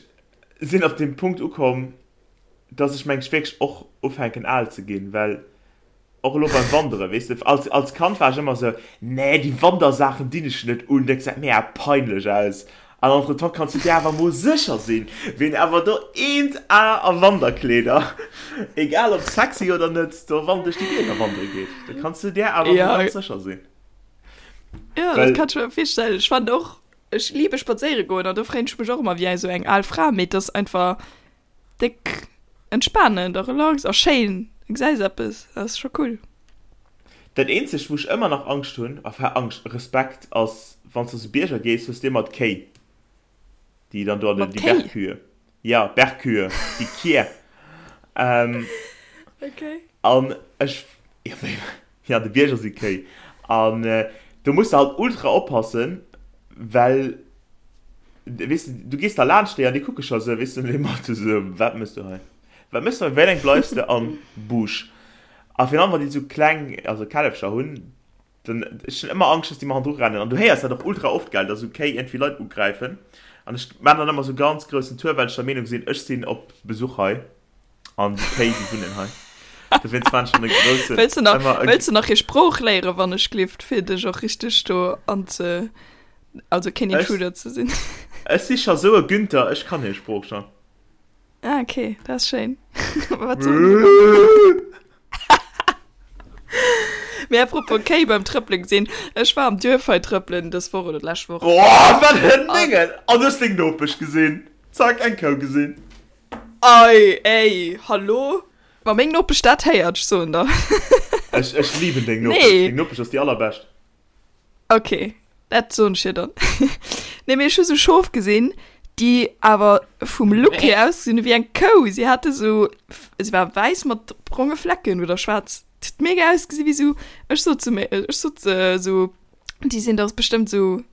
sinn op dem Punkt ukomm, dass ech mengs wierklech och ufänken al ze ginn, well Och elo beim Wanderen, weess de, als, als Kand war ech ëmmer esou, nee, déi Wandersaachen dinn ech net un, dat gesäit mega peinlech aus. An entretemps kanns du dir awer mol sécher sinn, ween awer do eent A a Wanderkleeder, egal ob sexy oder net, do wann duerch déi Bierger wandere geet, da kanns du dir awer mol Ja. ganz sécher sinn. Ja, dat Well. kann ech mer virstellen. Ech fannen och, ech liebe spadséiere goen an do freeën ech mech och ëmmer wéi esou eng al Fra, mee et ass einfach, Déck entspanend a relax a schéin, du gesäis eppes, dat ass scho cool. Dat eenzegt wou ech ëmmer nach Angscht hunn, enfin Angscht, Respekt, ass wanns du zu Bierger gees, hues de ëmmer d'Kéi déi dann do an den, Mat déi Kéi? Bergkühe, jo Bergkühe, déi Kier, ähm, Okay. an ech, jo wéi, jo an de Bierger si Kéi an do muss de halt ultra oppassen, well Weess de, du gees da laanscht déi an déi kucke scho sou, weess de, dee Mathe sou, wat mëss du hei? Wat mëss du hei? Wéi laang bleifs de am Busch? A virun allem, wann déi sou kleng, also Källefcher hunn, dann, ech hunn ëmmer Angscht, dass déi mer hannendru rennen. An du héiers dat och ultra oft, gell, dass sou Kéi iergendwéi Leit ugräifen. An ech maan dann ëmmer sou ganz groussen Tour, well ech der Meenung sinn, ech sinn op Besuch hei an déi Kéi, déi wunnen hei. Dowéinst maan ech dann e groussen, Wëlls de nach, ëmmer e. wëlls de nach hir Sprooch léieren, wann ech glift, fir dech och richteg do anze. Also keen Intruder ze sinn. Ech si scho sou e Günther, ech kann hir Sprooch schon. Ah, okay, dat ass schéin. Wat soen se dann? Mee apropos Kéi beim Trëppelen gesinn, ech war am Duerf hei trëppelen dës Woch oder d'lescht Woch. Oh, wat en Déngen! An du hues deng Nopesch gesinn. Zack, eng Kou gesinn. Ei, ey, hallo? Wa meng Nopesch dat héiert, ech soen der. Ech, ech liben deng Nopesch. Nee. Deng Nopesch ass déi allerbescht. Ok, dat soen ech hir dann. Nee, mee ech hu sou Schof gesinn, déi awer vum Look hier ausgesinn hu wéi eng Kou. Si hate sou, si war wäiss mat bronge Flecken oder schwaarz. Et huet mega ausgesi wéi sou, ech sot zu mir, ech sot sou, déi sinn dach bestëmmt sou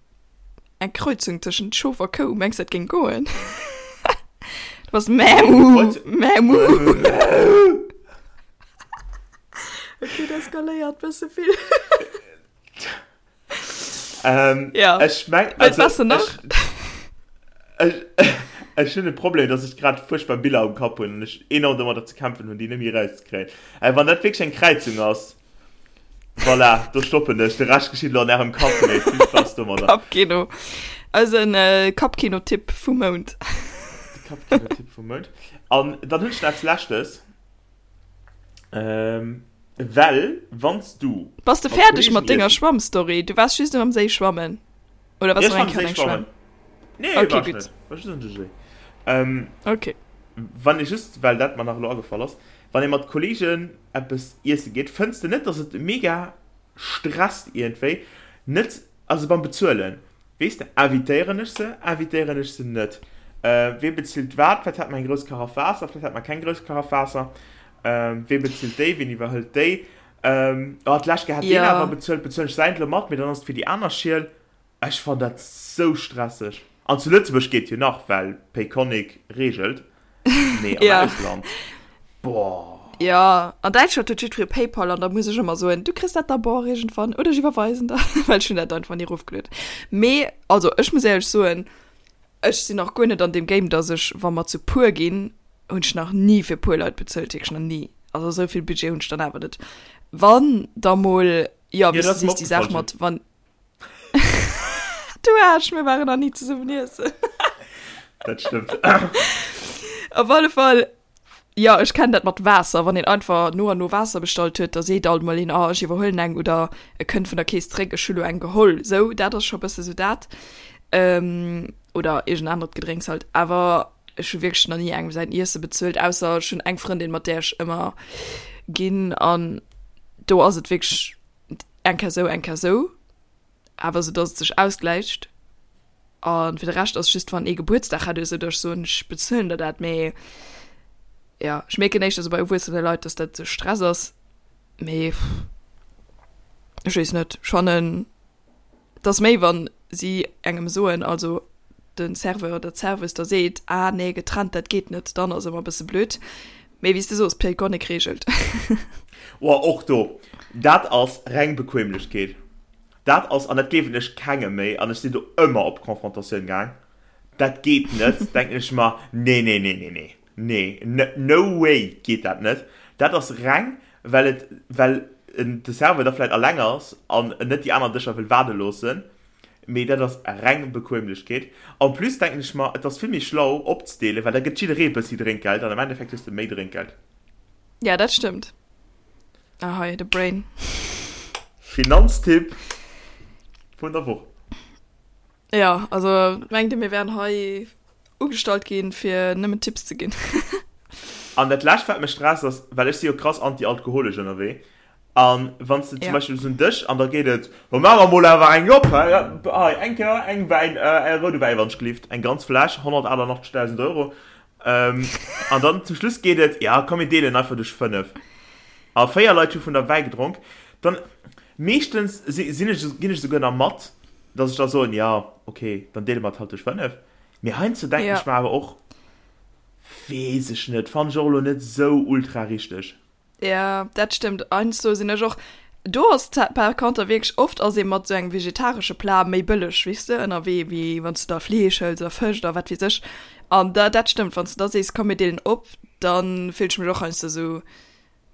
eng Kreuzung tëschent Schof a Kou. Mengs dat géing goen? Du bass Mämu, Mämu. Ok, dat eskaléiert bësse vill. Ähm, Ja. Ech meng, Wëllt also, was du nach? ech, ech, Ech hunn e Problem, dass ech grad fuerchtbar Biller am Kapp hunn an ech enorm domadder ze kämpfen hunn, déi net méi erauszekréien. Äh, wann dat wierklech eng Kräizung ass, voilà, do stoppen ech. De Rescht geschitt elo an ärem Kapp, mee vill Spaass domadder. Kappkino. Eisen äh, Kappkino-Tipp vum Mount. De Kappkino-Tipp vum Mount. An dann hunn ech nach eppes Leschtes. Ähm, well, wann s du. Bass de fäerdeg mat denger Schwammstory? Du waars just am Séi schwammen. Oder waars du nach eng Kéier an eng Schwämm? Nee, okay, war ich net. War just an de Séi. Ähm, okay. Wann ee just, well dat mer nach elo agefall ass, wann ee mat Kollegen eppes iesse geet, fënns de net, dass et mega stresst iergendwéi, net, also beim Bezuelen, weess de, invitéieren ech se, invitéieren ech se net, wee bezilt wat, vläicht hat mer eng grouss Karaff Waasser, vläicht hat mer keng grouss Karaff Waasser, wee bezilt déi, ween iwwerhëlt déi, oh d'lescht Kéier hat deen awer bezuelt, bezuelen ech säint elo mat, mee dann ass et fir déi aner Schiel. Ech fann dat sou stresseg. An zu Lëtzebuerg geet jo nach, well Payconiq reegelt, mee am Ja. Ausland, boah. Ja, an Däitschland huet jiddweree Paypal an da muss ech ëmmer soen, du kriss dat d'abord iergendwann oder ech iwwerweisen der, well ech hunn dat einfach ni erofgelueden. Mee also ech muss éierlech soen, ech sinn nach guer net an deem Game, dass ech, wa mer zu puer ginn, hunn ech nach ni fir puer Leit bezuelt, wierklech nach ni. Also esou vill Budget hunn ech dann awer net. Wann da mol, jo, Jo, wéi s dat du ass mer sees, déi Saach opgefall, mat wann, Du Aarsch, mir waren nach ni zesummen iessen. Dat stëmmt. Op alle Fall, ja, ech kennen dat mat Waasser, wann een einfach no an no Waasser bestallt huet, da seet alt mol een, ah, ech iwwerhuelen eng oder e kënnt vun der Kees zréck, ech hu lo eng geholl. Sou, dat ass scho bësse sou dat. Ähm, oder iergend anert Gedrénks halt. Awer ech hu wierklech nach ni engem säin Iesse bezuelt, ausser ech hunn eng Frëndin, mat där ech ëmmer ginn an do ass et wierklech eng Kéier sou, eng Kéier sou, awer sou dass et sech ausgläicht. A fir de Rescht ass just wann ee Gebuertsdag hätt oder sou, dass ech soen, ech bezuelen der dat. Mee jo, ech mierken éischter sou bei erwuessene Leit, dass dat sou Stress ass. Mee ech weess net, ech fannen Et ass méi wann si engem soen, also de Serveur oder d'Serveuse da seet, ah nee getrennt dat geet net, dann ass ëmmer e bësse blöd. Mee wéi s de soos, Payconiq reegelt. Oh och do, dat ass reng Bequemlechkeet. Dat ass, an dat gleewen ech kengem méi, an ech sinn do ëmmer op Confrontatioun gaang, dat geet net, denken ech mer, nee nee nee nee nee. Nee, no way geet dat net. Dat ass reng well et well de Serveur da vläit alleng ass an en net déi aner Dëscher wëll waarde loossen. Mee dat ass reng Bequemlechkeet. En plus denken ech mer, et ass vill méi schlau opzedeelen, well da gëtt jidderee e bëssi Drénkgeld an am Endeffekt hues de méi Drénkgeld. Ja, dat stëmmt. Ahoi, de Brain. Finanztipp vun der Woch. Ja, also mengt Dir mir wären hei ugestallt ginn fir nëmmen Tipps ze ginn? An dat lescht wat mech stresst ass, well ech si jo krass anti-alkoholesch ënnerwee, an wann s de zum Beispill bis un Dësch an da geet et, lo maache mer mol awer eng op, hei, hei eng Kéier eng Wäin, e roude Wäi wann ech gelift, eng ganz Fläsch, 188.000 Euro, an dann zum Schluss geet et, ja komm mir deelen einfach duerch 5, a 4 Leit hu vun der Wäi gedronk, dann meeschtens sinn ech, ginn ech esouguer nach mat, dass ech da soen, ja okay, dann deele mer et halt duerch 5. Mee heiansdo denken ech mer awer och, weess ech net, fannen ech och elo net esou ultra richteg. Ja, dat stëmmt. Heiansdo sinn ech och, do ass par conter wierklech, oft ass ee mat esou engem vegetaresche Plat méi bëlleg, weess de, ënnerwee, wéi wann s de da Fleesch hëls oder Fësch oder wat weess ech. An da, dat stëmmt, wann s de da sees, komm mir deelen op, da fillt ech mech och heiansdo esou,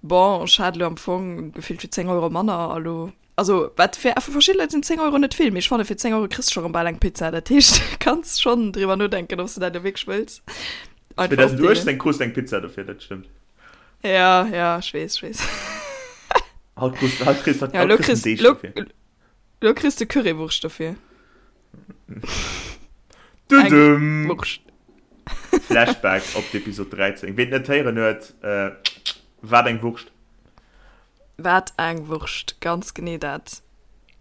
bon, ech hat elo am Fong gefillt fir 10 Euro manner a lo Also wat fir fir verschidde Leit sinn 10 Euro net vill, mee ech fanne fir 10 Euro kriss de scho rëm bal eng Pizza. Dat heescht, du kanns schonn driwwer nodenken, ob s de dat elo wierklech wëlls. Einfach opdeelen. 2018 krus de eng Pizza dofir, dat stëmmt. Ja, ja, ech weess, ech weess. Haut krus, haut kriss, haut Ja, elo kriss kriss, de Deeg lo, dofir. lo kriss de Currywurscht dofir. Eng Dudum! Wurscht. Flashback op d'Episod 13. Ween et net héieren huet, äh, wat eng Wurscht. Wat eng Wurscht, ganz genee dat.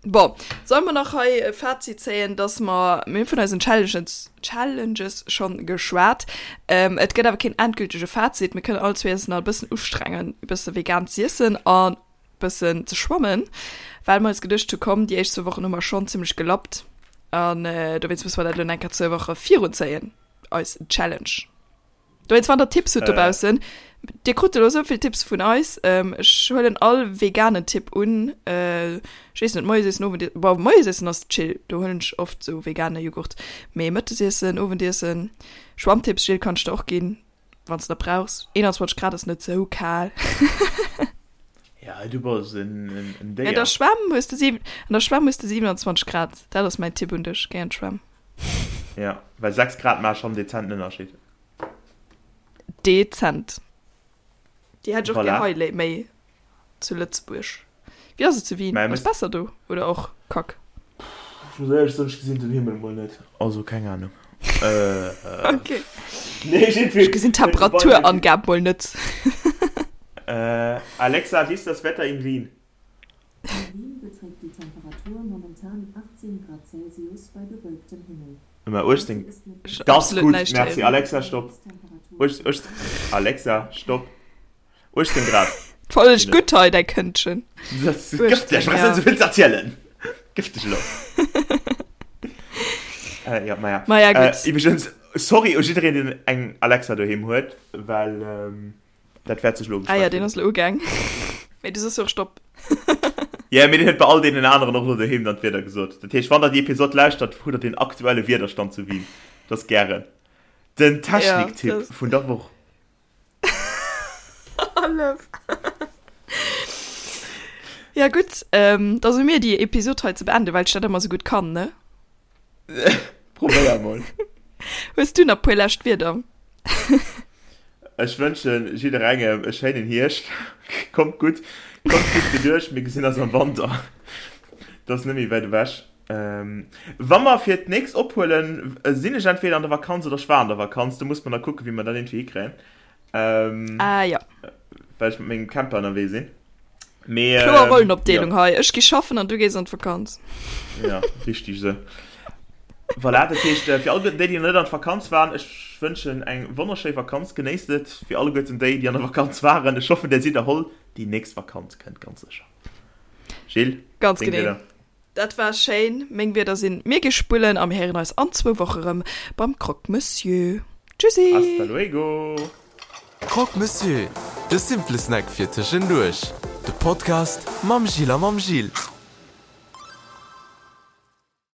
Bon, solle mer nach hei e Fazit zéien, dass mer, mir hu vun eisen Challenges, Challenges schonn geschwat, et gëtt awer keen endgültege Fazit. Mir kënnen all zwee eis nach e bëssen ustrengen, e bësse vegan z'iessen an e bëssen ze schwammen, well mer eis geduecht hu komm, déi éischt zwou Wochen hu mer schonn zimmlech gelappt an dowéinst musse mer dat elo nach eng Kéier zwou Woche virunzéien, eis Challenge. Dowéinst, wann der Tipps hutt dobaussen, äh. Dir krut elo esou vill Tipps vun eis. Ech huelen all veganen Tipp un. Ech weess net, Moiesiessen, Owendiessen, bon, Moiesiessen ass chill, do huelen ech oft esou vegane Jughurt. Mee Mëttesiessen, Owendiessen, Schwammtipps, Jill, kann ech der och ginn, wann s de der brauchs. 21 Grad ass net sou kal. Ja, du bass en Déier. An der Schwämm hues de 7, an der Schwämm hues de 27 Grad. Dat ass mäin Tipp un dech, géi an d'Schwämm. Ja, well 6 Grad maache schonn dezenten Ënnerscheed. Dezent. Déi hätt ech och gär hei léi méi zu Lëtzebuerg. Wéi ass et zu Wien? Ass besser do oder och kack? Ech muss éierlech soen, ech gesinn den Himmel mol net, also keng Ahnung. Ok. Ech gesinn d'Temperaturangab mol net. Alexa, wie ist das Wetter in Wien? In Wien beträgt die Temperatur momentan 18 Grad Celsius bei bewölktem Himmel. Mä 18, das gutt, merci. Alexa, stopp. Alexa, stopp. 18 Grad. Voll gutt hei, däi Këndchen. Dat ass gëfteg, ech hunn souvill ze erzielen. Gëfteg elo. Ja, maja. Maja, gutt. Iwwregens, sorry u jiddereen, deen eng Alexa doheem huet, well dat wäert sech elo Ah ja, deen ass elo ugaang. Mee du soss jo och Stopp. Ja, mee deen huet bei all deenen aneren och elo doheem dann d'Wieder gesot. Dat heescht, wann der déi Episod lauschtert, hutt der den aktuelle Wiederstand zu Wien. Dat ass gären den Techniktipp vun der Woch. Hallef. Ja gutt, ähm, da si mir déi Episod hei ze beenden, well ech dat ëmmer sou gutt kann, ne? Probéier mol. Hues du nach puer lescht Wierder? Ech wënschen jidderengem e schéinen Hierscht. Kommt gutt, kommt gutt geduerch, mir gesinn eis am Wanter. Dat ass net méi wäit ewech. Ähm, wa mer fir d'nächst ophuelen, sinn ech entweder an der Vakanz oder ech war an der Vakanz. Do muss mer da kucken, wéi mer dat iergendwéi hikréien. Ähm, ah, ja. Well ech mat mengem Camper ënnerwee sinn. Mee, Kloer ähm, Rollenopdeelung ja. hei. Ech gi schaffen an du gees an d'Vakanz. Ja, richtig sou. Voilà, dat heescht, äh, fir alleguerten déi, déi nach net an d'Vakanz waren, ech wënschen eng wonnerschéi Vakanz. Genéisst et. Fir alleguerten déi, déi an der Vakanz waren, ech hoffen, där sidd erholl. Déi nächst Vakanz kënnt ganz sécher. Jill, Ganz deng genee. Wieder. Dat war schéin. Meng Wierder sinn, Mir gi spullen a mir héieren eis an zwou Woche rëm beim Croque Monsieur. Tschüssi! Hasta luego! Croque Monsieur, de simple Snack fir tëschenduerch. De Podcast mam Gilles a mam Gilles.